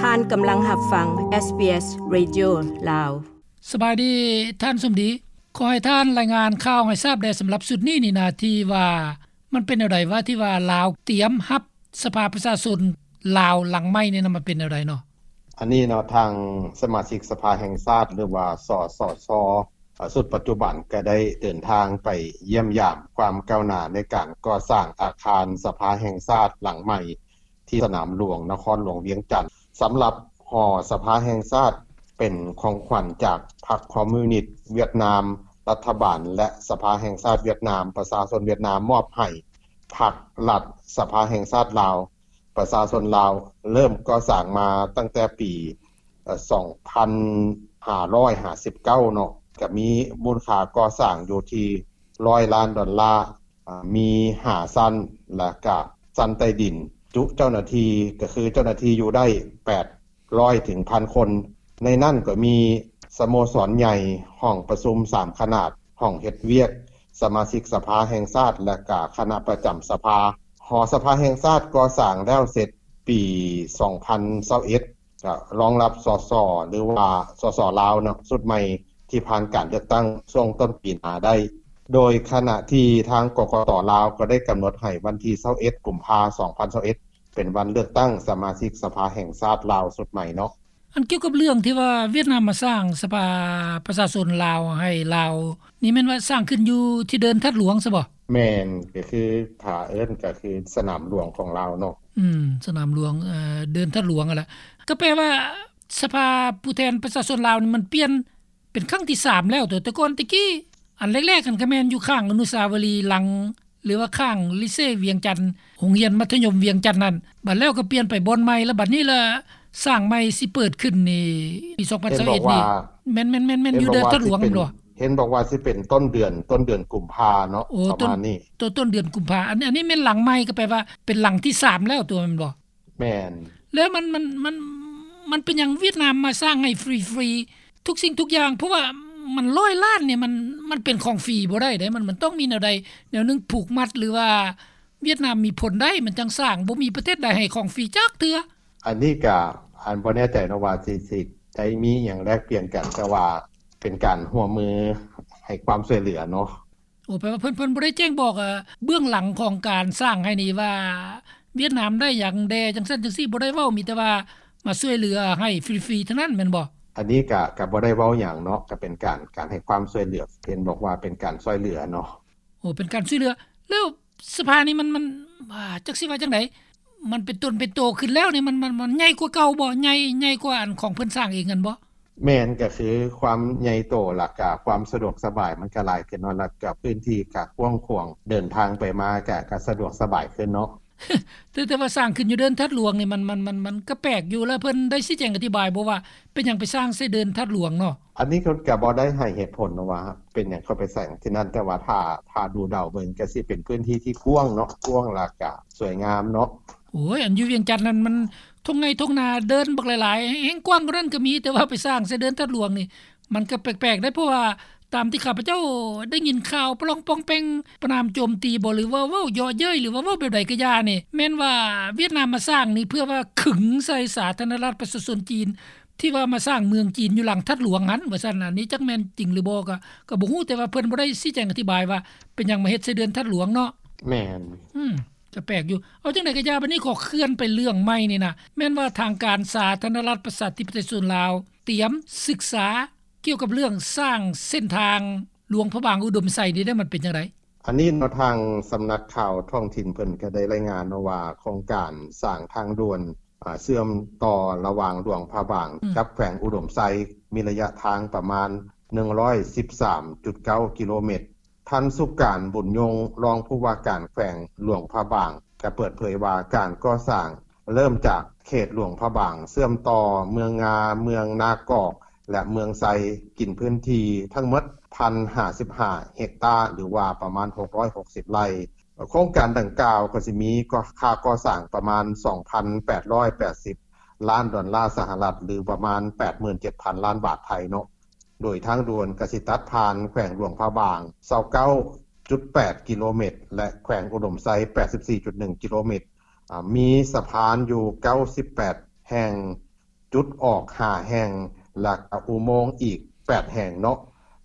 ທ່ານກຳລັງຮັບຟັງ SBS Radio ລາວ. ສະບາຍດີທ່ານສົມດີ, ຂໍໃຫ້ທ່ານລາຍງານຂ່າວໃຫ້ຊາບແດ່ ສຳລັບຊຸດນີ້ນີ້ນະ ທີ່ວ່າມັນເປັນແນວໃດວະ ທີ່ວ່າລາວຕຽມຮັບສະພາປະຊາຊົນລາວຫຼັງໃໝ່ນີ້ນະ ມັນເປັນແນວໃດເນາະ? ອັນນີ້ເນາະ ທາງສະມາຊິກສະພາແຫ່ງຊາດ ຫຼືວ່າ ສສຊ ເອີ ຊຸດປັດຈຸບັນກໍໄດ້ເດີນທາງໄປຢ້ຽມຢາມຄວາມກ້າວໜ້າໃນການກໍ່ສ້າງອາຄານສະພາແຫ່ງຊາດຫຼັງໃໝ່ ທີ່ສະໜາມຫຼວງນະຄອນຫຼວງວຽງຈັນ. ສຳລັບຫໍສະພາແຫ່ງຊາດ ເປັນຂອງຂວັນຈາກພັກຄອມມິວນິດຫວຽດນາມ, ລັດຖະບານ ແລະ ສະພາແຫ່ງຊາດຫວຽດນາມ, ປະຊາຊົນຫວຽດນາມມອບໃຫ້ພັກລັດສະພາແຫ່ງຊາດລາວ. ປະຊາຊົນລາວເລີ່ມກໍ່ສ້າງມາຕັ້ງແຕ່ປີ ເອີ ສອງພັນຫ້າຮ້ອຍຫ້າສິບເກົ້າເນາະ, ກະມີມູນຄ່າກໍ່ສ້າງຢູ່ທີ່ຮ້ອຍລ້ານດອນລາ, ອາ ມີຫ້າຊັ້ນ ແລະກະຊັ້ນໃຕ້ດິນ, ຈຸເຈົ້າໜ້າທີ່ ກະຄືເຈົ້າໜ້າທີ່ຢູ່ໄດ້ແປດຮ້ອຍເຖິງພັນຄົນ. ໃນນັ້ນກໍມີສະໂມສອນໃຫຍ່, ຫ້ອງປະຊຸມສາມຂະໜາດ, ຫ້ອງເຮັດວຽກສະມາຊິກສະພາແຫ່ງຊາດ ແລະກະຄະນະປະຈຳສະພາ. ຫໍສະພາແຫ່ງຊາດກໍ່ສ້າງແລ້ວເສັດປີສອງພັນຊາວເອັດ ກະຮອງຮັບ ສສ ຫຼືວ່າ ສສ ລາວເນາະ ຊຸດໃໝ່ທີ່ຜ່ານການເລືອກຕັ້ງຊ່ວງຕົ້ນປີໜ້າໄດ້, ໂດຍຂະນະທີ່ທາງ ກກຕ ລາວ ກໍໄດ້ກຳນົດໃຫ້ວັນທີຊາວເອັດ ກຸມພາ ສອງພັນຊາວເອັດ ເປັນວັນເລືອກຕັ້ງສະມາຊິກສະພາແຫ່ງຊາດລາວຊຸດໃໝ່ເນາະ. ອັນກ່ຽວກັບເລື່ອງທີ່ວ່າຫວຽດນາມມາສ້າງສະພາປະຊາຊົນລາວໃຫ້ລາວນີ້ ແມ່ນວ່າສ້າງຂຶ້ນຢູ່ທີ່ເດີ່ນທາດຫຼວງຊະບໍ່? ແມ່ນ, ກໍຄືຖ້າເອີ້ນກໍຄືສະໜາມຫຼວງຂອງລາວເນາະ. ອືມ ສະໜາມຫຼວງ ເອີ ເດີ່ນທາດຫຼວງຫັ້ນລະ. ກໍແປວ່າສະພາຜູ້ແທນປະຊາຊົນລາວນີ້ ມັນປ່ຽນເປັນຄັ້ງທີສາມແລ້ວຕົວະ. ແຕ່ກ່ອນແຕ່ກີ້ ອັນແລກໆຫັ້ນກໍແມ່ນຢູ່ຂ້າງອະນຸສາວະລີຫຼັງ ຫຼືວ່າຂ້າງລິເຊວຽງຈັນ, ໂຮງຮຽນມັດທະຍົມວຽງຈັນນັ້ນ, ບັດແລ້ວກໍປ່ຽນໄປບ່ອນໃໝ່ ແລ້ວບັດນີ້ລະສ້າງໃໝ່ຊິເປີດຂຶ້ນນີ້ ປີສອງພັນຊາວເອັດນີ້. ແມ່ນໆໆໆ ຢູ່ເດີ່ນທາດຫຼວງແມ່ນບໍ່? ເຫັນບອກວ່າຊິເປັນຕົ້ນເດືອນ ຕົ້ນເດືອນກຸມພາເນາະ. ໂອ້ ປະມານນີ້ ຕົ້ນ ຕົ້ນເດືອນກຸມພາ. ອັນ ອັນນີ້ແມ່ນຫຼັງໃໝ່ ກໍແປວ່າເປັນຫຼັງທີສາມແລ້ວຕົວ ແມ່ນບໍ່? ແມ່ນ. ແລ້ວມັນ ມັນ ມັນ ມັນເປັນຫຍັງຫວຽດນາມມາສ້າງໃຫ້ຟຣີໆ ທຸກສິ່ງທຸກຢ່າງ? ເພາະວ່າມັນຮ້ອຍລ້ານນີ້ ມັນ ມັນເປັນຂອງຟຣີບໍ່ໄດ້ເດ້, ມັນ ມັນຕ້ອງມີແນວໃດແນວໜຶ່ງຜູກມັດ ຫຼືວ່າຫວຽດນາມມີຜົນໄດ້ ມັນຈັ່ງສ້າງ, ບໍ່ມີປະເທດໃດໃຫ້ຂອງຟຣີຈັກເທື່ອ. ອັນນີ້ກະ ອັນ ບໍ່ແນ່ໃຈເນາະວ່າຊິ ຊິໄດ້ມີຫຍັງແລກປ່ຽນກັນ, ແຕ່ວ່າເປັນການຮ່ວມມືໃຫ້ຄວາມຊ່ວຍເຫຼືອເນາະ. ໂອ້ ແປວ່າເພິ່ນ ເພິ່ນບໍ່ໄດ້ແຈ້ງບອກ ເອີ ເບື້ອງຫຼັງຂອງການສ້າງໃຫ້ນີ້ວ່າຫວຽດນາມໄດ້ຫຍັງແດ່ ຈັ່ງຊັ້ນຈັ່ງຊີ້ ບໍ່ໄດ້ເວົ້າ, ມີແຕ່ວ່າມາຊ່ວຍເຫຼືອໃຫ້ຟຣີໆເທົ່ານັ້ນແມ່ນບໍ່? ອັນນີ້ກະ ກະບໍ່ໄດ້ເວົ້າຫຍັງເນາະ, ກະເປັນການ ການໃຫ້ຄວາມຊ່ວຍເຫຼືອ, ເຫັນບອກວ່າເປັນການຊ່ວຍເຫຼືອເນາະ. ໂອ້ ເປັນການຊ່ວຍເຫຼືອ. ແລ້ວສະພານີ້ມັນ ມັນ ອ່າ ຈັກຊິວ່າຈັ່ງໃດ? ມັນເປັນຕົນເປັນໂຕຂຶ້ນແລ້ວນີ້ ມັນ ມັນ ມັນໃຫຍ່ກວ່າເກົ່າບໍ່? ໃຫຍ່ ໃຫຍ່ກວ່າອັນຂອງເພິ່ນສ້າງເອງຫັ້ນບໍ່? ແມ່ນ, ກໍຄືຄວາມໃຫຍ່ໂຕ ແລ້ວກະຄວາມສະດວກສະບາຍມັນກະຫຼາຍຂຶ້ນເນາະ, ແລ້ວກະພື້ນທີ່ກະກວ້າງຂວາງ, ເດີນທາງໄປມາກະ ກະສະດວກສະບາຍຂຶ້ນເນາະ. ແຕ່ ແຕ່ວ່າສ້າງຂຶ້ນຢູ່ເດີ່ນທາດຫຼວງນີ້ ມັນ ມັນ ມັນ ມັນກະແປກຢູ່, ແລ້ວເພິ່ນໄດ້ຊີ້ແຈງອະທິບາຍບໍ່ວ່າເປັນຫຍັງໄປສ້າງໃສ່ເດີ່ນທາດຫຼວງເນາະ? ອັນນີ້ເພິ່ນກະບໍ່ໄດ້ໃຫ້ເຫດຜົນວ່າເປັນຫຍັງເຂົາໄປສ້າງທີ່ນັ້ນ, ແຕ່ວ່າຖ້າ ຖ້າດູເດົາເບິ່ງກະຊິເປັນພື້ນທີ່ທີ່ກວ້າງເນາະ, ກວ້າງ ແລ້ວກະສວຍງາມເນາະ. ໂອ້ຍ ອັນຢູ່ວຽງຈັນນັ້ນມັນທົ່ງໄຮ່ທົ່ງນາ, ເດີ່ນບັກຫຼາຍໆ ແຮ່ງກວ້າງກວ່ານັ້ນກໍມີ, ແຕ່ວ່າໄປສ້າງໃສ່ເດີ່ນທາດຫຼວງນີ້ ມັນກໍແປກໆໄດ໋, ເພາະວ່າຕາມທີ່ຂ້າພະເຈົ້າໄດ້ຍິນຂ່າວປະລອງປອງແປງ ປະນາມໂຈມຕີບໍ ຫຼືວ່າເວົ້າເຍາະເຍີ້ຍ ຫຼືວ່າເວົ້າແບບໃດກໍຢ່ານີ້ ແມ່ນວ່າຫວຽດນາມມາສ້າງນີ້ ເພື່ອວ່າຂຶງໃສ່ສາທາລະນະລັດປະຊາຊົນຈີນ ທີ່ວ່າມາສ້າງເມືອງຈີນຢູ່ຫຼັງທາດຫຼວງຫັ້ນ ວ່າຊັ້ນ. ອັນນີ້ຈັກແມ່ນຈິງຫຼືບໍ່ກໍ ກໍບໍ່ຮູ້, ແຕ່ວ່າເພິ່ນບໍ່ໄດ້ຊີ້ແຈງອະທິບາຍວ່າເປັນຫຍັງມາເຮັດໃສ່ເດີ່ນທາດຫຼວງເນາະ. ແມ່ນ. ອືມ ກໍແປກຢູ່. ເອົາຈັ່ງໃດກໍຢ່າ, ບັດນີ້ຂໍເຄື່ອນໄປເລື່ອງໃໝ່ນີ້ນະ, ແມ່ນວ່າທາງການສາທາລະນະລັດປະຊາທິປະໄຕປະຊາຊົນລາວ ຕຽມສຶກສາກ່ຽວກັບເລື່ອງສ້າງເສັ້ນທາງຫຼວງພະບາງອຸດົມໄຊນີ້ໄດ້ ມັນເປັນຈັ່ງໃດ? ອັນນີ້ເນາະ ທາງສຳນັກຂ່າວທ້ອງຖິ່ນເພິ່ນກໍໄດ້ລາຍງານເນາະວ່າ ໂຄງການສ້າງທາງດ່ວນ ອາ ເຊື່ອມຕໍ່ລະຫວ່າງຫຼວງພະບາງ ອືມ ກັບແຂວງອຸດົມໄຊ ມີໄລຍະທາງປະມານໜຶ່ງຮ້ອຍສິບສາມຈຸດເກົ້າກິໂລແມັດ. ທ່ານ ສຸການ ບຸນຍົງ ຮອງຜູ້ວ່າການແຂວງຫຼວງພະບາງ ກໍເປີດເຜີຍວ່າ ການກໍ່ສ້າງເລີ່ມຈາກເຂດຫຼວງພະບາງ ເຊື່ອມຕໍ່ເມືອງງາ, ເມືອງນາກອກ ແລະ ເມືອງໄຊ ກິນພື້ນທີ່ທັງໝົດ ໜຶ່ງພັນຫ້າສິບຫ້າເຮັກຕາ ຫຼືວ່າປະມານຫົກຮ້ອຍຫົກສິບໄຮ່. ໂຄງການດັ່ງກ່າວກໍຊິມີ ກໍ ຄ່າກໍ່ສ້າງປະມານສອງພັນແປດຮ້ອຍແປດສິບລ້ານດອນລາສະຫະລັດ ຫຼືປະມານແປດໝື່ນເຈັດພັນລ້ານບາດໄທເນາະ, ໂດຍທາງດ່ວນກໍຊິຕັດຜ່ານແຂວງຫຼວງພະບາງຊາວເກົ້າຈຸດແປດກິໂລແມັດ ແລະ ແຂວງອຸດົມໄຊແປດສິບສີ່ຈຸດໜຶ່ງກິໂລແມັດ, ອາ ມີສະພານຢູ່ເກົ້າສິບແປດແຫ່ງ, ຈຸດອອກຫ້າແຫ່ງ ແລະ ກະອຸໂມງອີກແປດແຫ່ງເນາະ.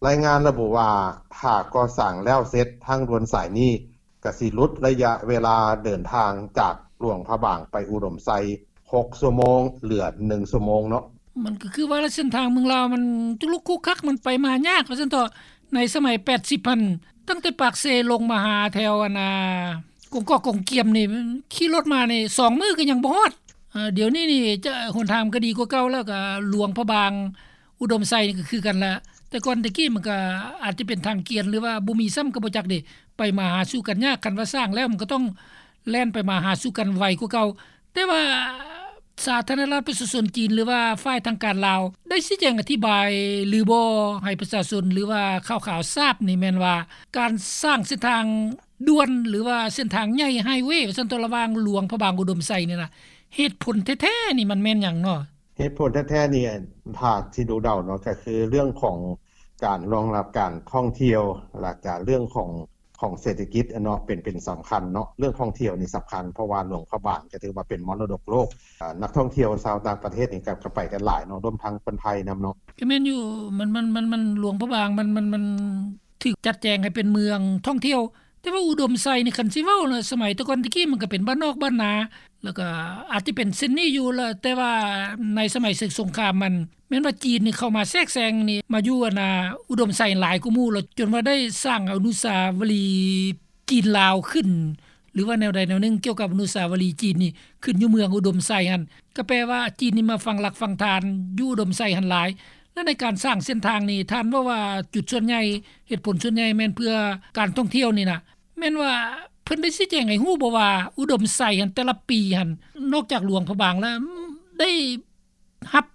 ລາຍງານລະບຸວ່າ ຖ້າກໍ່ສ້າງແລ້ວເສັດ ທາງດ່ວນສາຍນີ້ ກະຊິຫຼຸດໄລຍະເວລາເດີນທາງຈາກຫຼວງພະບາງໄປອຸດົມໄຊ ຫົກຊົ່ວໂມງ ເຫຼືອໜຶ່ງຊົ່ວໂມງເນາະ. ມັນກໍຄືວ່າເສັ້ນທາງເມືອງລາວມັນຈຸລຸກຄຸກຄັກ ມັນໄປມາຍາກວ່າຊັ້ນເຖາະ. ໃນສະໄໝແປດສິບຫັ້ນ ຕັ້ງແຕ່ປາກເຊລົງມາຫາແຖວອັນນ່າ ກົງກອກກົງກຽມນີ້ ຂີ່ລົດມານີ້ສອງມື້ກໍຍັງບໍ່ຮອດ. ເອີ ດຽວນີ້ນີ້ຈະ ຫົນທາງມັນກໍດີກວ່າເກົ່າແລ້ວ ກໍຫຼວງພະບາງ ອຸດົມໄຊນີ້ກໍຄືກັນລະ. ແຕ່ກ່ອນແຕ່ກີ້ມັນກໍອາດຈະເປັນທາງກຽນ ຫຼືວ່າບໍ່ມີຊ້ຳກໍບໍ່ຈັກເດ. ໄປມາຫາສູ່ກັນຍາກ, ຄັນວ່າສ້າງແລ້ວມັນກໍຕ້ອງແລ່ນໄປມາຫາສູ່ກັນໄວກວ່າເກົ່າ. ແຕ່ວ່າສາທາລະນະລັດປະຊາຊົນຈີນ ຫຼືວ່າຝ່າຍທາງການລາວ ໄດ້ຊີ້ແຈງອະທິບາຍຫຼືບໍ່ ໃຫ້ປະຊາຊົນ ຫຼືວ່າຂ່າວຂາວຊາບນີ້ແມ່ນວ່າ ການສ້າງເສັ້ນທາງດ່ວນ ຫຼືວ່າເສັ້ນທາງໃຫຍ່ ໄຮເວ ວ່າຊັ້ນເຖາະ ລະຫວ່າງຫຼວງພະບາງ ອຸດົມໄຊນີ້ນະ ເຫດຜົນແທ້ໆນີ້ມັນແມ່ນຫຍັງເນາະ? ເຫດຜົນແທ້ໆນີ້ ຖ້າຊິດູເດົາເນາະ ກໍຄືເລື່ອງຂອງການລອງຮັບການທ່ອງທ່ຽວ ແລ້ວກະເລື່ອງຂອງ ຂອງເສດຖະກິດເນາະ ເປັນ ເປັນສຳຄັນເນາະ. ເລື່ອງທ່ອງທ່ຽວນີ້ສຳຄັນ ເພາະວ່າຫຼວງພະບາງກໍຖືວ່າເປັນມໍລະດົກໂລກ. ອາ ນັກທ່ອງທ່ຽວຊາວຕ່າງປະເທດນີ້ກໍ ກໍໄປກັນຫຼາຍເນາະ ລວມທັງຄົນໄທນຳເນາະ. ກໍແມ່ນຢູ່ ມັນ ມັນ ມັນ ມັນ ຫຼວງພະບາງ ມັນ ມັນ ມັນຖືກຈັດແຈງໃຫ້ເປັນເມືອງທ່ອງທ່ຽວ. ແຕ່ວ່າອຸດົມໄຊນີ້ ຄັນຊິເວົ້ານະ ສະໄໝແຕ່ກ່ອນແຕ່ກີ້ ມັນກໍເປັນບ້ານນອກບ້ານນາ ແລ້ວກໍອາດຈະເປັນເຊັ່ນນີ້ຢູ່ລະ ແຕ່ວ່າໃນສະໄໝເຊິ່ງສົງຄາມ ມັນແມ່ນວ່າຈີນນີ້ເຂົ້າມາແຊກແຊງນີ້ ມາຢູ່ອັນນ່າ ອຸດົມໄຊຫຼາຍກວ່າໝູ່ ແລ້ວຈົນວ່າໄດ້ສ້າງອະນຸສາວະລີຈີນລາວຂຶ້ນ ຫຼືວ່າແນວໃດແນວໜຶ່ງ ກ່ຽວກັບອະນຸສາວະລີຈີນນີ້ ຂຶ້ນຢູ່ເມືອງອຸດົມໄຊຫັ້ນ ກໍແປວ່າຈີນນີ້ມາຝັງຫຼັກຝັງຖານຢູ່ອຸດົມໄຊຫັ້ນຫຼາຍ. ແລະ ໃນການສ້າງເສັ້ນທາງນີ້ ທ່ານເວົ້າວ່າຈຸດສ່ວນໃຫຍ່ ເຫດຜົນສ່ວນໃຫຍ່ແມ່ນເພື່ອການທ່ອງທ່ຽວນີ້ນະ ແມ່ນວ່າເພິ່ນໄດ້ຊີ້ແຈງໃຫ້ຮູ້ບໍ່ວ່າ ອຸດົມໄຊຫັ້ນ ແຕ່ລະປີຫັ້ນ ນອກຈາກຫຼວງພະບາງແລ້ວ ໄດ້ຮັບ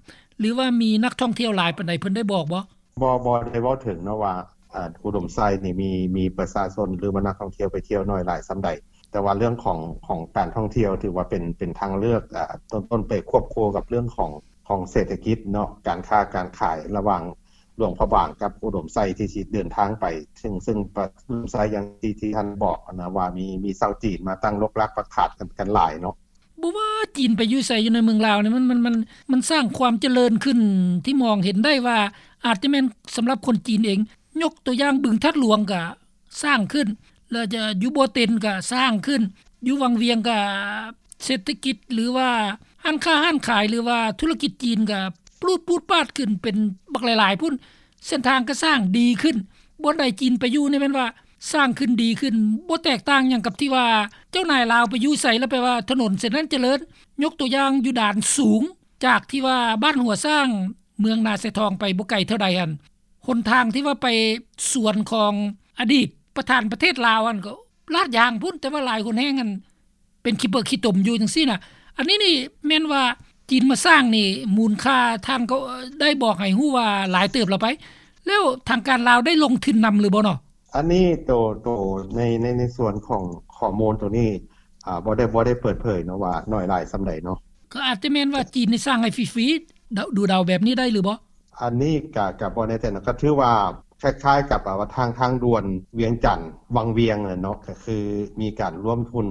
ຫຼືວ່າມີນັກທ່ອງທ່ຽວຫຼາຍປານໃດ ເພິ່ນໄດ້ບອກບໍ່? ບໍ່ ບໍ່ໄດ້ເວົ້າເຖິງເນາະວ່າ ອາ ອຸດົມໄຊນີ້ມີ ມີປະຊາຊົນ ຫຼືວ່ານັກທ່ອງທ່ຽວໄປທ່ຽວໜ້ອຍຫຼາຍສ່ຳໃດ. ແຕ່ວ່າເລື່ອງຂອງ ຂອງການທ່ອງທ່ຽວ ຖືວ່າເປັນ ເປັນທາງເລືອກ ອາ ຕົ້ນໆ ໄປຄວບຄູ່ກັບເລື່ອງຂອງ ຂອງເສດຖະກິດເນາະ ການຄ້າການຂາຍລະຫວ່າງຫຼວງພະບາງກັບອຸດົມໄຊ ທີ່ຊິເດີນທາງໄປ ເຊິ່ງ ເຊິ່ງປະ ອຸດົມໄຊຢ່າງທີ່ ທີ່ທ່ານບອກຫັ້ນນະ ວ່າມີ ມີຊາວຈີນມາຕັ້ງລົກລາກປັກຖານກັນ ກັນຫຼາຍເນາະ. ບໍ່ວ່າຈີນໄປຢູ່ໃສຢູ່ໃນເມືອງລາວນີ້ ມັນ ມັນ ມັນ ມັນສ້າງຄວາມຈະເລີນຂຶ້ນທີ່ມອງເຫັນໄດ້ວ່າ ອາດຈະແມ່ນສຳລັບຄົນຈີນເອງ. ຍົກຕົວຢ່າງ ບຶງທາດຫຼວງກະສ້າງຂຶ້ນ ແລ້ວຈະຢູ່ບໍ່ເຕັນກະສ້າງຂຶ້ນ ຢູ່ວັງວຽງກະເສດຖະກິດ ຫຼືວ່າຮ້ານຄ້າຮ້ານຂາຍ ຫຼືວ່າທຸລະກິດຈີນກະປູດປູດປາດຂຶ້ນເປັນບັກຫຼາຍໆພຸ້ນ. ເສັ້ນທາງກະສ້າງດີຂຶ້ນ ບ່ອນໃດຈີນໄປຢູ່ນີ້ແມ່ນວ່າສ້າງຂຶ້ນດີຂຶ້ນ ບໍ່ແຕກຕ່າງຫຍັງກັບທີ່ວ່າເຈົ້ານາຍລາວໄປຢູ່ໃສແລ້ວແປວ່າຖະໜົນເສັ້ນນັ້ນຈະເລີນ. ຍົກຕົວຢ່າງຢູ່ດານສູງ ຈາກທີ່ວ່າບ້ານຫົວຊ້າງ ເມືອງນາຊາຍທອງໄປບໍ່ໄກເທົ່າໃດຫັ້ນ ຫົນທາງທີ່ວ່າໄປສວນຂອງອະດີດປະທານປະເທດລາວຫັ້ນ ກໍລາດຢາງພຸ້ນ ແຕ່ວ່າຫຼາຍຫົນແຮ່ງຫັ້ນ ເປັນຂີ້ເປິກຂີ້ຕົມຢູ່ຈັ່ງຊີ້ນະ. ອັນນີ້ນີ້ແມ່ນວ່າຈີນມາສ້າງນີ້ ມູນຄ່າທ່ານກໍໄດ້ບອກໃຫ້ຮູ້ວ່າຫຼາຍເຕີບແລ້ວໄປ ແລ້ວທາງການລາວໄດ້ລົງທຶນນຳຫຼືບໍ່ເນາະ? ອັນນີ້ໂຕ ໂຕໃນ ໃນ ໃນສ່ວນຂອງຂໍ້ມູນໂຕນີ້ ອາ ບໍ່ໄດ້ ບໍ່ໄດ້ເປີດເຜີຍເນາະວ່າໜ້ອຍຫຼາຍສ່ຳໃດເນາະ. ກໍອາດຈະແມ່ນວ່າຈີນນີ້ສ້າງໃຫ້ຟຣີໆ ເດົາ ດູເດົາແບບນີ້ໄດ້ຫຼືບໍ່? ອັນນີ້ກະ ກະບໍ່ແນ່ໃຈເນາະ ກໍຖືວ່າຄ້າຍໆກັບ ອາ ວ່າທາງ ທາງດ່ວນວຽງຈັນວັງວຽງແຫຼະເນາະ ກໍຄືມີການລວມທຶນ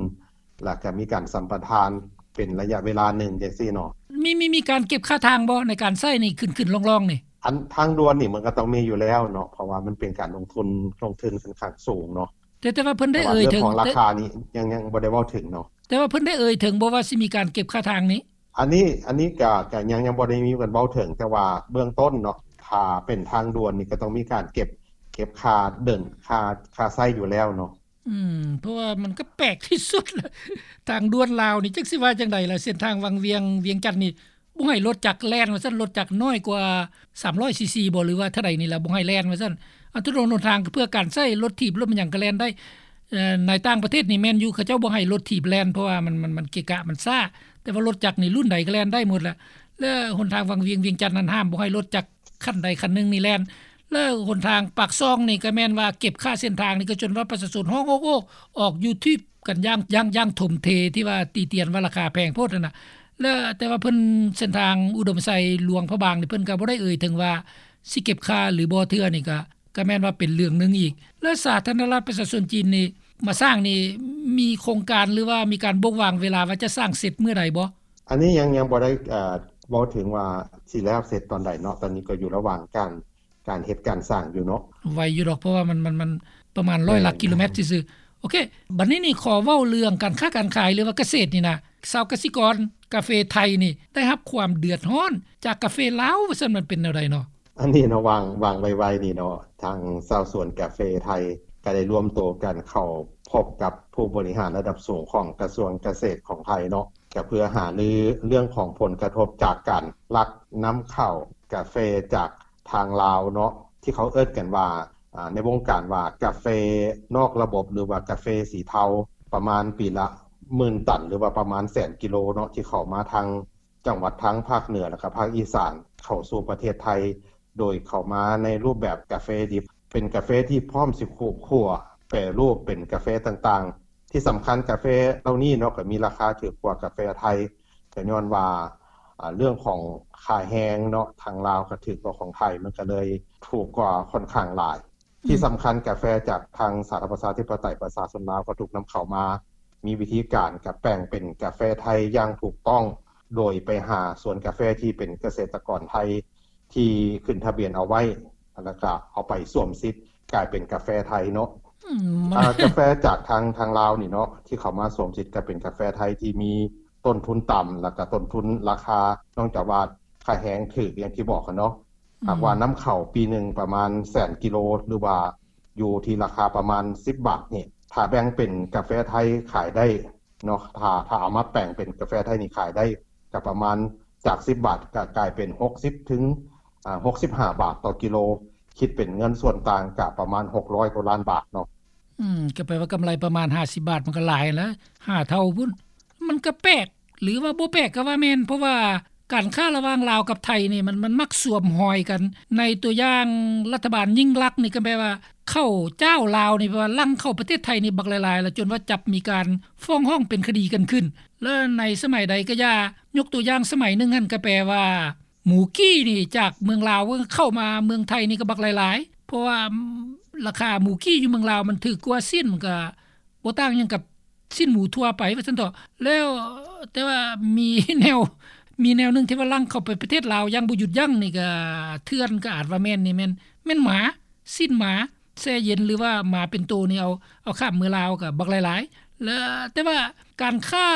ແລ້ວກໍມີການສຳປະທານເປັນໄລຍະເວລາໜຶ່ງຈັ່ງຊີ້ເນາະ. ມີ ມີ ມີການເກັບຄ່າທາງບໍ່ ໃນການໃຊ້ນີ້ ຂຶ້ນໆລ່ອງໆນີ້? ອັນທາງດ່ວນນີ້ມັນກໍຕ້ອງມີຢູ່ແລ້ວເນາະ ເພາະວ່າມັນເປັນການລົງທຶນ ລົງທຶນຂ້ອນຂ້າງສູງເນາະ. ແຕ່ ແຕ່ວ່າເພິ່ນໄດ້ເອີ່ຍເຖິງ ແຕ່ວ່າເລື່ອງຂອງລາຄານີ້ຍັງ ຍັງບໍ່ໄດ້ເວົ້າເຖິງເນາະ. ແຕ່ວ່າເພິ່ນໄດ້ເອີ່ຍເຖິງບໍ່ວ່າຊິມີການເກັບຄ່າທາງນີ້? ອັນນີ້ ອັນນີ້ກະ ກະຍັງ ຍັງບໍ່ໄດ້ມີການເວົ້າເຖິງ ແຕ່ວ່າເບື້ອງຕົ້ນເນາະ ຖ້າເປັນທາງດ່ວນນີ້ກະຕ້ອງມີການເກັບ ເກັບຄ່າເດີນ ຄ່າ ຄ່າໃຊ້ຢູ່ແລ້ວເນາະ. ອືມ ເພາະວ່າມັນກະແປກທີ່ສຸດລະ ທາງດ່ວນລາວນີ້ ຈັກຊິວ່າຈັ່ງໃດລະ ເສັ້ນທາງວັງວຽງ ວຽງຈັນນີ້ ບໍ່ໃຫ້ລົດຈັກແລ່ນວ່າຊັ້ນ ລົດຈັກນ້ອຍກວ່າສາມຮ້ອຍຊີຊີບໍ ຫຼືວ່າເທົ່າໃດນີ້ລະ ບໍ່ໃຫ້ແລ່ນວ່າຊັ້ນ. ອາ ຖະໜົນຫົນທາງເພື່ອການໃຊ້ລົດຖີບ ລົດຫຍັງກະແລ່ນໄດ້. ເອີ ໃນຕ່າງປະເທດນີ້ແມ່ນຢູ່ ເຂົາເຈົ້າບໍ່ໃຫ້ລົດຖີບແລ່ນ ເພາະວ່າມັນ ມັນ ມັນເກະກະ ມັນຊ້າ ແຕ່ວ່າລົດຈັກນີ້ລຸ້ນໃດກະແລ່ນໄດ້ໝົດລະ. ແລ້ວຫົນທາງວັງວຽງ ວຽງຈັນນັ້ນ ຫ້າມບໍ່ໃຫ້ລົດຈັກຄັນໃດຄັນໜຶ່ງນີ້ແລ່ນ. ແລ້ວຫົນທາງປາກຊ່ອງນີ້ກະແມ່ນວ່າເກັບຄ່າເສັ້ນທາງນີ້ ກະຈົນວ່າປະຊາຊົນຮ້ອງໂອກໂອ ອອກຢູທູບ ກັນຢ່າງ ຢ່າງ ຢ່າງຖົມເທ ທີ່ວ່າຕິຕຽນວ່າລາຄາແພງໂພດຫັ້ນນະ. ແລ້ວແຕ່ວ່າເພິ່ນ ເສັ້ນທາງອຸດົມໄຊ ຫຼວງພະບາງນີ້ ເພິ່ນກະບໍ່ໄດ້ເອີ່ຍເຖິງວ່າຊິເກັບຄ່າຫຼືບໍ່ເທື່ອນີ້ ກະ ກະແມ່ນວ່າເປັນເລື່ອງໜຶ່ງອີກ. ແລ້ວສາທາລະນະລັດປະຊາຊົນຈີນນີ້ ມາສ້າງນີ້ ມີໂຄງການ ຫຼືວ່າມີການບົ່ງວາງເວລາວ່າຈະສ້າງເສັດມື້ໃດບໍ່? ອັນນີ້ຍັງ ຍັງບໍ່ໄດ້ ເອີ່ ເວົ້າເຖິງວ່າຊິແລ້ວເສັດຕອນໃດເນາະ ຕອນນີ້ກໍຢູ່ລະຫວ່າງການ ການເຮັດການສ້າງຢູ່ເນາະ. ໄວຢູ່ດອກ ເພາະວ່າມັນ ມັນ ມັນປະມານຮ້ອຍຫຼັກກິໂລແມັດຊື່ໆ. ໂອເຄ ບັດນີ້ນີ້ຂໍເວົ້າເລື່ອງການຄ້າການຂາຍ ຫຼືວ່າກະເສດນີ້ນະ ຊາວກະສິກອນກາເຟໄທນີ້ໄດ້ຮັບຄວາມເດືອດຮ້ອນຈາກກາເຟລາວວ່າຊັ້ນ ມັນເປັນແນວໃດເນາະ? ອັນນີ້ເນາະ ຫວ່າງ ຫວ່າງໄວໆນີ້ເນາະ ທາງຊາວສວນກາເຟໄທກໍໄດ້ລວມໂຕກັນເຂົ້າພົບກັບຜູ້ບໍລິຫານລະດັບສູງຂອງກະຊວງກະເສດຂອງໄທເນາະ ກໍເພື່ອຫາລືເລື່ອງຂອງຜົນກະທົບຈາກການລັກນຳເຂົ້າກາເຟຈາກທາງລາວເນາະ ທີ່ເຂົາເອີ້ນກັນວ່າ ອາ ໃນວົງການວ່າກາເຟນອກລະບົບ ຫຼືວ່າກາເຟສີເທົາ ປະມານປີລະໝື່ນຕັນ ຫຼືວ່າປະມານແສນກິໂລເນາະ ທີ່ເຂົ້າມາທາງ ຈັງຫວັດທາງພາກເໜືອ ແລະກະພາກອີສານ ເຂົ້າສູ່ປະເທດໄທ ໂດຍເຂົ້າມາໃນຮູບແບບກາເຟດິບ ເປັນກາເຟທີ່ພ້ອມຊິຂູດຂົ້ວ ແປຮູບເປັນກາເຟຕ່າງໆ. ທີ່ສຳຄັນກາເຟເຫຼົ່ານີ້ເນາະ ກໍມີລາຄາຖືກກວ່າກາເຟໄທ ກໍຍ້ອນວ່າ ອາ ເລື່ອງຂອງຄ່າແຮງເນາະ ທາງລາວກໍຖືກກວ່າຂອງໄທ ມັນກໍເລີຍຖືກກວ່າຂ້ອນຂ້າງຫຼາຍ. ທີ່ສຳຄັນກາເຟຈາກທາງສາທາລະນະລັດປະຊາທິປະໄຕປະຊາຊົນລາວກໍຖືກນຳເຂົ້າມາ ມີວິທີການກະແປງເປັນກາເຟໄທຢ່າງຖືກຕ້ອງ ໂດຍໄປຫາສວນກາເຟທີ່ເປັນກະເສດຕະກອນໄທທີ່ຂຶ້ນທະບຽນເອົາໄວ້ ແລ້ວກະເອົາໄປສວມສິດກາຍເປັນກາເຟໄທເນາະ. ອາ ກາເຟຈາກທາງ ທາງລາວນີ້ເນາະ ທີ່ເຂົ້າມາສວມສິດກາຍເປັນກາເຟໄທທີ່ມີຕົ້ນທຶນຕ່ຳ ແລ້ວກະຕົ້ນທຶນລາຄາ ເນື່ອງຈາກວ່າຄ່າແຮງຖືກ ຢ່າງທີ່ບອກຫັ້ນເນາະ. ຫາກວ່ານຳເຂົ້າປີໜຶ່ງປະມານແສນກິໂລ ຫຼືວ່າຢູ່ທີ່ລາຄາປະມານສິບບາດນີ້ ຖ້າແບ່ງເປັນກາເຟໄທຂາຍໄດ້ເນາະ ຖ້າ ຖ້າເອົາມາແປງເປັນກາເຟໄທນີ້ຂາຍໄດ້ກະປະມານຈາກສິບບາດກະກາຍເປັນຫົກສິບເຖິງ ອາ ຫົກສິບຫ້າບາດຕໍ່ກິໂລ ຄິດເປັນເງິນສ່ວນຕ່າງກະປະມານຫົກຮ້ອຍກວ່າລ້ານບາດເນາະ. ອືມ ກໍແປວ່າກຳໄລປະມານຫ້າສິບບາດ ມັນກໍຫຼາຍຫັ້ນລະ ຫ້າເທົ່າພຸ້ນ. ມັນກໍແປກ ຫຼືວ່າບໍ່ແປກກໍວ່າແມ່ນ ເພາະວ່າການຄ້າລະຫວ່າງລາວກັບໄທນີ້ ມັນ ມັນມັກສວມຮອຍກັນ. ໃນຕົວຢ່າງລັດຖະບານຍິ່ງລັກນີ້ ກໍແປວ່າເຂົ້າຈ້າວລາວນີ້ ແປວ່າຫຼັ່ງເຂົ້າປະເທດໄທນີ້ບັກຫຼາຍໆ ລະຈົນວ່າຈັບມີການຟ້ອງຮ້ອງເປັນຄະດີກັນຂຶ້ນ. ແລະໃນສະໄໝໃດກໍຢ່າ ຍົກຕົວຢ່າງສະໄໝໜຶ່ງຫັ້ນ ກໍແປວ່າ ໝູກີ້ນີ້ຈາກເມືອງລາວເຂົ້າມາເມືອງໄທນີ້ກໍບັກຫຼາຍໆ ເພາະວ່າລາຄາໝູກີ້ຢູ່ເມືອງລາວມັນຖືກກວ່າຊີ້ນ ມັນກໍບໍ່ຕ່າງຫຍັງກັບຊີ້ນໝູທົ່ວໄປວ່າຊັ້ນເຖາະ. ແລ້ວ ແຕ່ວ່າມີແນວ ມີແນວໜຶ່ງທີ່ວ່າຫຼັ່ງເຂົ້າໄປປະເທດລາວຢ່າງບໍ່ຢຸດຢັ້ງນີ້ ກໍເຖື່ອນ ກໍອາດວ່າແມ່ນນີ້ ແມ່ນ ແມ່ນໝາ ຊີ້ນໝາແຊ່ເຢັນ ຫຼືວ່າໝາເປັນໂຕນີ້ ເອົາ ເອົາຂ້າມເມືອງລາວກໍບັກຫຼາຍໆ. ແລະ ແຕ່ວ່າການຄ້າ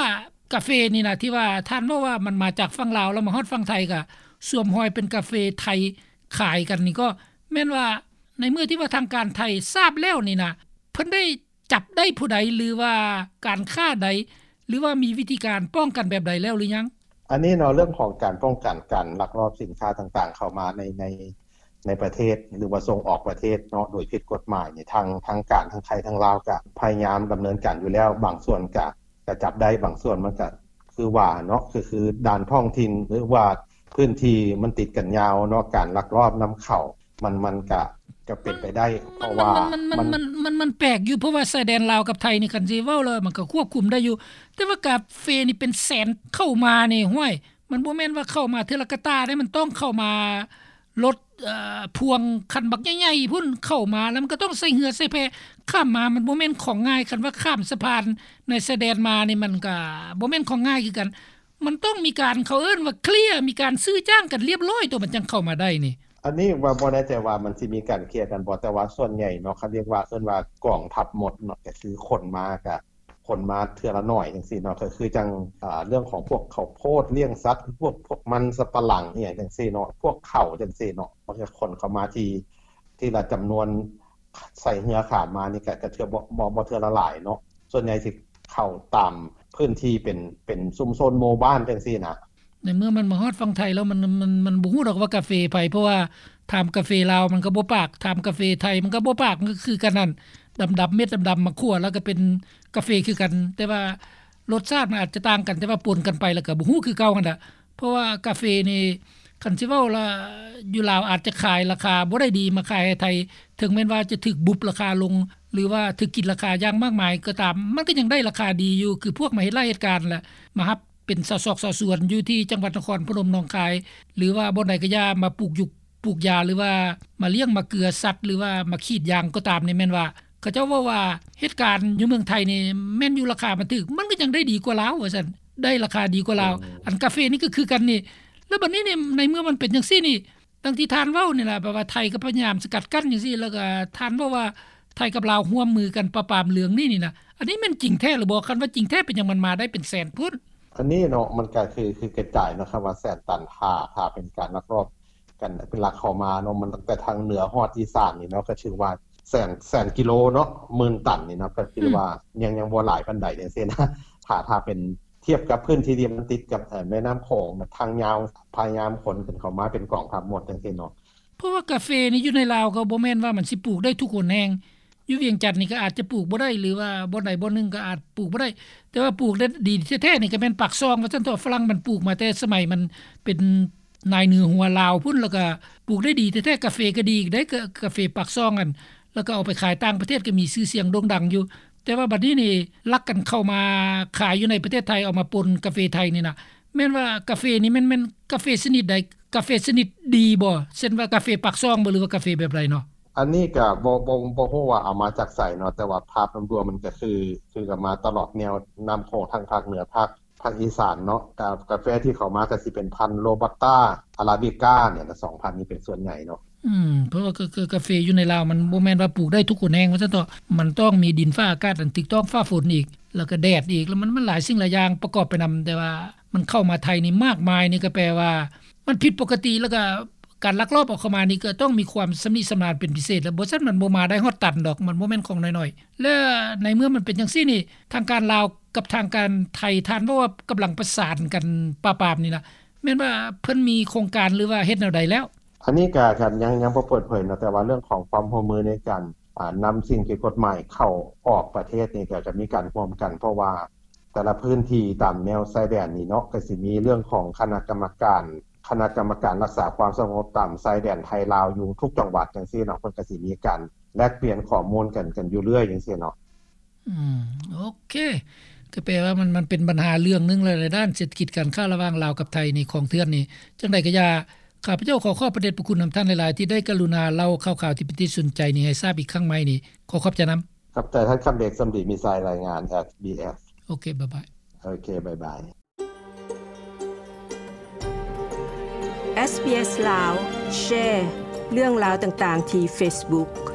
ກາເຟນີ້ນະ ທີ່ວ່າທ່ານເວົ້າວ່າມັນມາຈາກຝັ່ງລາວ ແລ້ວມາຮອດຝັ່ງໄທ ກະສວມຮອຍເປັນກາເຟໄທຂາຍກັນນີ້ ກໍແມ່ນວ່າໃນເມື່ອທີ່ວ່າທາງການໄທຊາບແລ້ວນີ້ນະ ເພິ່ນໄດ້ຈັບໄດ້ຜູ້ໃດ ຫຼືວ່າການຄ້າໃດ ຫຼືວ່າມີວິທີການປ້ອງກັນແບບໃດແລ້ວຫຼືຍັງ? ອັນນີ້ເນາະ ເລື່ອງຂອງການປ້ອງກັນການລັກລອບສິນຄ້າຕ່າງໆເຂົ້າມາໃນ ໃນ ໃນປະເທດ ຫຼືວ່າສົ່ງອອກປະເທດເນາະ ໂດຍຜິດກົດໝາຍນີ້ ທາງ ທາງການ ທາງໄທ ທາງລາວ ກະພະຍາຍາມດຳເນີນການຢູ່ແລ້ວ. ບາງສ່ວນກະ ກະຈັບໄດ້ ບາງສ່ວນມັນກະຄືວ່າເນາະ ຄື ຄືດ່ານທ້ອງຖິ່ນ ຫຼືວ່າພື້ນທີ່ມັນຕິດກັນຍາວເນາະ ການລັກລອບນຳເຂົ້າ ມັນ ມັນກະ ກະເປັນໄປໄດ້ ເພາະວ່າມັນ ມັນ ມັນ ມັນ ມັນ ມັນແປກຢູ່ ເພາະວ່າຊາຍແດນລາວກັບໄທນີ້ ຄັນຊິເວົ້າແລ້ວມັນກະຄວບຄຸມໄດ້ຢູ່ ແຕ່ວ່າກາເຟນີ້ເປັນແສນເຂົ້າມານີ້ ຫ້ວຍ ມັນບໍ່ແມ່ນວ່າເຂົ້າມາເທື່ອລະກະຕ່າເດ້ ມັນຕ້ອງເຂົ້າມາລົດ ເອີ ພ່ວງຄັນບັກໃຫຍ່ໆພຸ້ນ ເຂົ້າມາແລ້ວມັນກໍຕ້ອງໃຊ້ເຮືອໃຊ້ແພຂ້າມມາ ມັນບໍ່ແມ່ນຂອງງ່າຍ. ຄັນວ່າຂ້າມສະພານໃນຊາຍແດນມານີ້ ມັນກໍບໍ່ແມ່ນຂອງງ່າຍຄືກັນ ມັນຕ້ອງມີການ ເຂົາເອີ້ນວ່າເຄລຍ ມີການຊື້ຈ້າງກັນລຽບລ້ອຍ ໂຕມັນຈັ່ງເຂົ້າມາໄດ້ນີ້. ອັນນີ້ວ່າບໍ່ແນ່ໃຈວ່າມັນຊິມີການເຄລຍກັນບໍ່ ແຕ່ວ່າສ່ວນໃຫຍ່ເນາະ ເຂົາເອີ້ນວ່າ ເອີ້ນວ່າກອງທັບມົດເນາະ ກໍຄືຂົນມາ ກໍຂົນມາເທື່ອລະໜ້ອຍຈັ່ງຊີ້ເນາະ ກໍຄືຈັ່ງ ອາ ເລື່ອງຂອງພວກເຂົ້າໂພດລ້ຽງສັດ ພວກ ພວກມັນສຳປະຫຼັງອີ່ຫຍັງຈັ່ງຊີ້ເນາະ ພວກເຂົ້າຈັ່ງຊີ້ເນາະ ມັນກໍຂົນເຂົ້າມາທີ່ ທີລະຈຳນວນ ໃສ່ເຮືອຂ້າມມານີ້ກໍ ກໍເທື່ອ ບໍ່ ບໍ່ ບໍ່ເທື່ອລະຫຼາຍເນາະ ສ່ວນໃຫຍ່ຊິເຂົ້າຕາມພື້ນທີ່ເປັນ ເປັນຊຸມຊົນໝູ່ບ້ານຈັ່ງຊີ້ນະ. ໃນເມື່ອມັນມາຮອດຝັ່ງໄທແລ້ວ ມັນ ມັນ ມັນບໍ່ຮູ້ດອກວ່າກາເຟໃຜ ເພາະວ່າຖາມກາເຟລາວມັນກໍບໍ່ປາກ ຖາມກາເຟໄທມັນກໍບໍ່ປາກ ມັນກໍຄືກັນຫັ້ນ ດຳໆ ເມັດດຳໆ ມາຂົ້ວແລ້ວກໍເປັນກາເຟຄືກັນ ແຕ່ວ່າລົດຊາດມັນອາດຈະຕ່າງກັນ ແຕ່ວ່າປົນກັນໄປແລ້ວກໍບໍ່ຮູ້ຄືເກົ່າຫັ້ນລະ. ເພາະວ່າກາເຟນີ້ ຄັນຊິເວົ້າລະ ຢູ່ລາວອາດຈະຂາຍລາຄາບໍ່ໄດ້ດີມາຂາຍໃຫ້ໄທ ເຖິງແມ່ນວ່າຈະຖືກບຸບລາຄາລົງ ຫຼືວ່າຖືກກິນລາຄາຢ່າງມາກມາຍກໍຕາມ ມັນກໍຍັງໄດ້ລາຄາດີຢູ່ ຄືພວກມາເຮັດໄຮ່ເຮັດການລະ ມາຮັບເປັນຊາວຊອກຊາວສວນຢູ່ທີ່ຈັງຫວັດນະຄອນພະນົມ ໜອງຄາຍ ຫຼືວ່າບ່ອນໃດກໍຢ່າ ມາປູກຢູກ ປູກຢາ ຫຼືວ່າມາລ້ຽງມາເກືອສັດ ຫຼືວ່າມາຂີດຢາງກໍຕາມນີ້ ແມ່ນວ່າເຂົາເຈົ້າເວົ້າວ່າເຮັດການຢູ່ເມືອງໄທນີ້ ແມ່ນຢູ່ລາຄາມັນຖືກ ມັນກໍຍັງໄດ້ດີກວ່າລາວວ່າຊັ້ນ ໄດ້ລາຄາດີກວ່າລາວ. ອັນກາເຟນີ້ກໍຄືກັນນີ້ ແລ້ວບັດນີ້ນີ້ ໃນເມື່ອມັນເປັນຈັ່ງຊີ້ນີ້ ດັ່ງທີ່ທ່ານເວົ້ານີ້ລະ ແບບວ່າໄທກໍພະຍາຍາມສະກັດກັ້ນຈັ່ງຊີ້ ແລ້ວກໍທ່ານເວົ້າວ່າ ໄທກັບລາວຮ່ວມມືກັນປາບປາມເລື່ອງນີ້ນີ້ນະ ອັນນີ້ແມ່ນຈິງແທ້ຫຼືບໍ່? ຄັນວ່າຈິງແທ້ ເປັນຫຍັງມັນມາໄດ້ເປັນແສນພຸ້ນ? ອັນນີ້ເນາະ ມັນກໍຄື ຄືກະຈາຍເນາະ ຄຳວ່າແສນຕັນ ຖ້າ ຖ້າເປັນການລັກລອບກັນ ເປັນລັກເຂົ້າມາເນາະ ມັນຕັ້ງແຕ່ທາງເໜືອຮອດອີສານນີ້ເນາະ ກໍຖືວ່າແສນ ແສນກິໂລເນາະ ໝື່ນຕັນນີ້ເນາະ ກໍຄືວ່າ ອືມ ຍັງ ຍັງບໍ່ຫຼາຍປານໃດຈັ່ງຊີ້ນະ ຖ້າ ຖ້າເປັນ ທຽບກັບພື້ນທີ່ທີ່ມັນຕິດກັບ ເອີ ແມ່ນ້ຳຂອງ ແບບທາງຍາວ ພະຍາຍາມຂົນຂຶ້ນເຂົ້າມາເປັນກອງທັບໝົດຈັ່ງຊີ້ເນາະ. ເພາະວ່າກາເຟນີ້ຢູ່ໃນລາວກໍບໍ່ແມ່ນວ່າມັນຊິປູກໄດ້ທຸກຫົນແຫ່ງ ຢູ່ວຽງຈັນນີ້ກໍອາດຈະປູກບໍ່ໄດ້ ຫຼືວ່າບ່ອນໃດບ່ອນໜຶ່ງກໍອາດປູກບໍ່ໄດ້ ແຕ່ວ່າປູກໄດ້ດີແທ້ໆນີ້ກໍແມ່ນປາກຊ່ອງວ່າຊັ້ນເຖາະ ຝຣັ່ງມັນປູກມາແຕ່ສະໄໝມັນເປັນນາຍເໜືອຫົວລາວພຸ້ນ ແລ້ວກໍປູກໄດ້ດີແທ້ໆ ກາເຟກໍດີອີກເດ້ ກາເຟປາກຊ່ອງຫັ້ນ ແລ້ວກໍເອົາໄປຂາຍຕ່າງປະເທດກໍມີຊື່ສຽງໂດ່ງດັງຢູ່ ແຕ່ວ່າບັດນີ້ນີ້ລັກກັນເຂົ້າມາຂາຍຢູ່ໃນປະເທດໄທ ເອົາມາປົນກາເຟໄທນີ້ນະ ແມ່ນວ່າກາເຟນີ້ແມ່ນ ແມ່ນກາເຟຊະນິດໃດ? ກາເຟຊະນິດດີບໍ່? ເຊັ່ນວ່າກາເຟປາກຊ່ອງບໍ່ ຫຼືວ່າກາເຟແບບໃດເນາະ? ອັນນີ້ກະບໍ່ ບໍ່ ບໍ່ຮູ້ວ່າເອົາມາຈາກໃສເນາະ ແຕ່ວ່າພາບລວມໆມັນກະຄື ຄືກັນມາຕະຫຼອດແນວນ້ຳຂອງ ທັງພາກເໜືອ ພາກ ພາກອີສານເນາະ ກາ ກາເຟທີ່ເຂົ້າມາກະຊິເປັນພັນໂຣບັດຕາ ອາຣາບິກາ ນີ້ລະ ສອງພັນນີ້ເປັນສ່ວນໃຫຍ່ເນາະ. ອືມ ເພາະວ່າກາ ກາ ກາເຟຢູ່ໃນລາວມັນບໍ່ແມ່ນວ່າປູກໄດ້ທຸກຫົນແຫ່ງວ່າຊັ້ນເຖາະ ມັນຕ້ອງມີດິນຟ້າອາກາດອັນຖືກຕ້ອງ ຟ້າຝົນອີກ ແລ້ວກໍແດດອີກ ແລ້ວມັນ ມັນຫຼາຍສິ່ງຫຼາຍຢ່າງປະກອບໄປນຳ ແຕ່ວ່າມັນເຂົ້າມາໄທນີ້ມາກມາຍ ນີ້ກໍແປວ່າມັນຜິດປົກກະຕິ ແລ້ວກໍການລັກລອບເອົາເຂົ້າມານີ້ກໍຕ້ອງມີຄວາມຊຳນິຊຳນານເປັນພິເສດ ແລ້ວບໍ່ຊັ້ນມັນບໍ່ມາໄດ້ຮອດຕັນດອກ ມັນບໍ່ແມ່ນຂອງນ້ອຍໆ ແລະໃນເມື່ອມັນເປັນຈັ່ງຊີ້ນີ້ ທາງການລາວກັບທາງການໄທ ທ່ານເວົ້າວ່າກຳລັງປະສານກັນປາບປາມນີ້ນະ ແມ່ນວ່າເພິ່ນມີໂຄງການ ຫຼືວ່າເຮັດແນວໃດແລ້ວ? ອັນນີ້ກະ ກະຍັງ ຍັງບໍ່ເປີດເຜີຍເນາະ ແຕ່ວ່າເລື່ອງຂອງຄວາມຮ່ວມມືໃນການ ອາ ນຳສິ່ງຜິດກົດໝາຍເຂົ້າອອກປະເທດນີ້ ກະ ກະມີການຮ່ວມກັນ ເພາະວ່າແຕ່ລະພື້ນທີ່ຕາມແນວຊາຍແດນນີ້ເນາະ ກະຊິມີເລື່ອງຂອງຄະນະກຳມະການ ຄະນະກຳມະການລັກສາຄວາມສະຫງົບຕາມຊາຍແດນໄທລາວຢູ່ທຸກຈັງຫວັດຈັ່ງຊີ້ເນາະ ເພິ່ນກະຊິມີການແລກປ່ຽນຂໍ້ມູນກັນ ກັນຢູ່ເລື້ອຍຈັ່ງຊີ້ເນາະ. ອືມ ໂອເຄ ກໍແປວ່າມັນ ມັນເປັນບັນຫາເລື່ອງໜຶ່ງແຫຼະ ໃນດ້ານເສດຖະກິດການຄ້າລະຫວ່າງລາວກັບໄທນີ້ ຂອງເຖື່ອນນີ້ ຈັ່ງໃດກໍຢ່າ ຂ້າພະເຈົ້າຂໍຂອບພະເດດພະຄຸນນຳທ່ານຫຼາຍໆ ທີ່ໄດ້ກະລຸນາເລົ່າຂ່າວໆທີ່ເປັນທີ່ສົນໃຈນີ້ໃຫ້ຊາບອີກຄັ້ງໃໝ່ນີ້ ຂໍຂອບໃຈນຳ. ຂອບໃຈທ່ານຄຳເບກ ສົມດີມີໄຊ ລາຍງານ ເອສບີເອສ. ໂອເຄ ບາຍບາຍ. ໂອເຄ ບາຍບາຍ. ເອສບີເອສລາວ ແຊເລື່ອງລາວຕ່າງໆທີ່ເຟສບຸກ.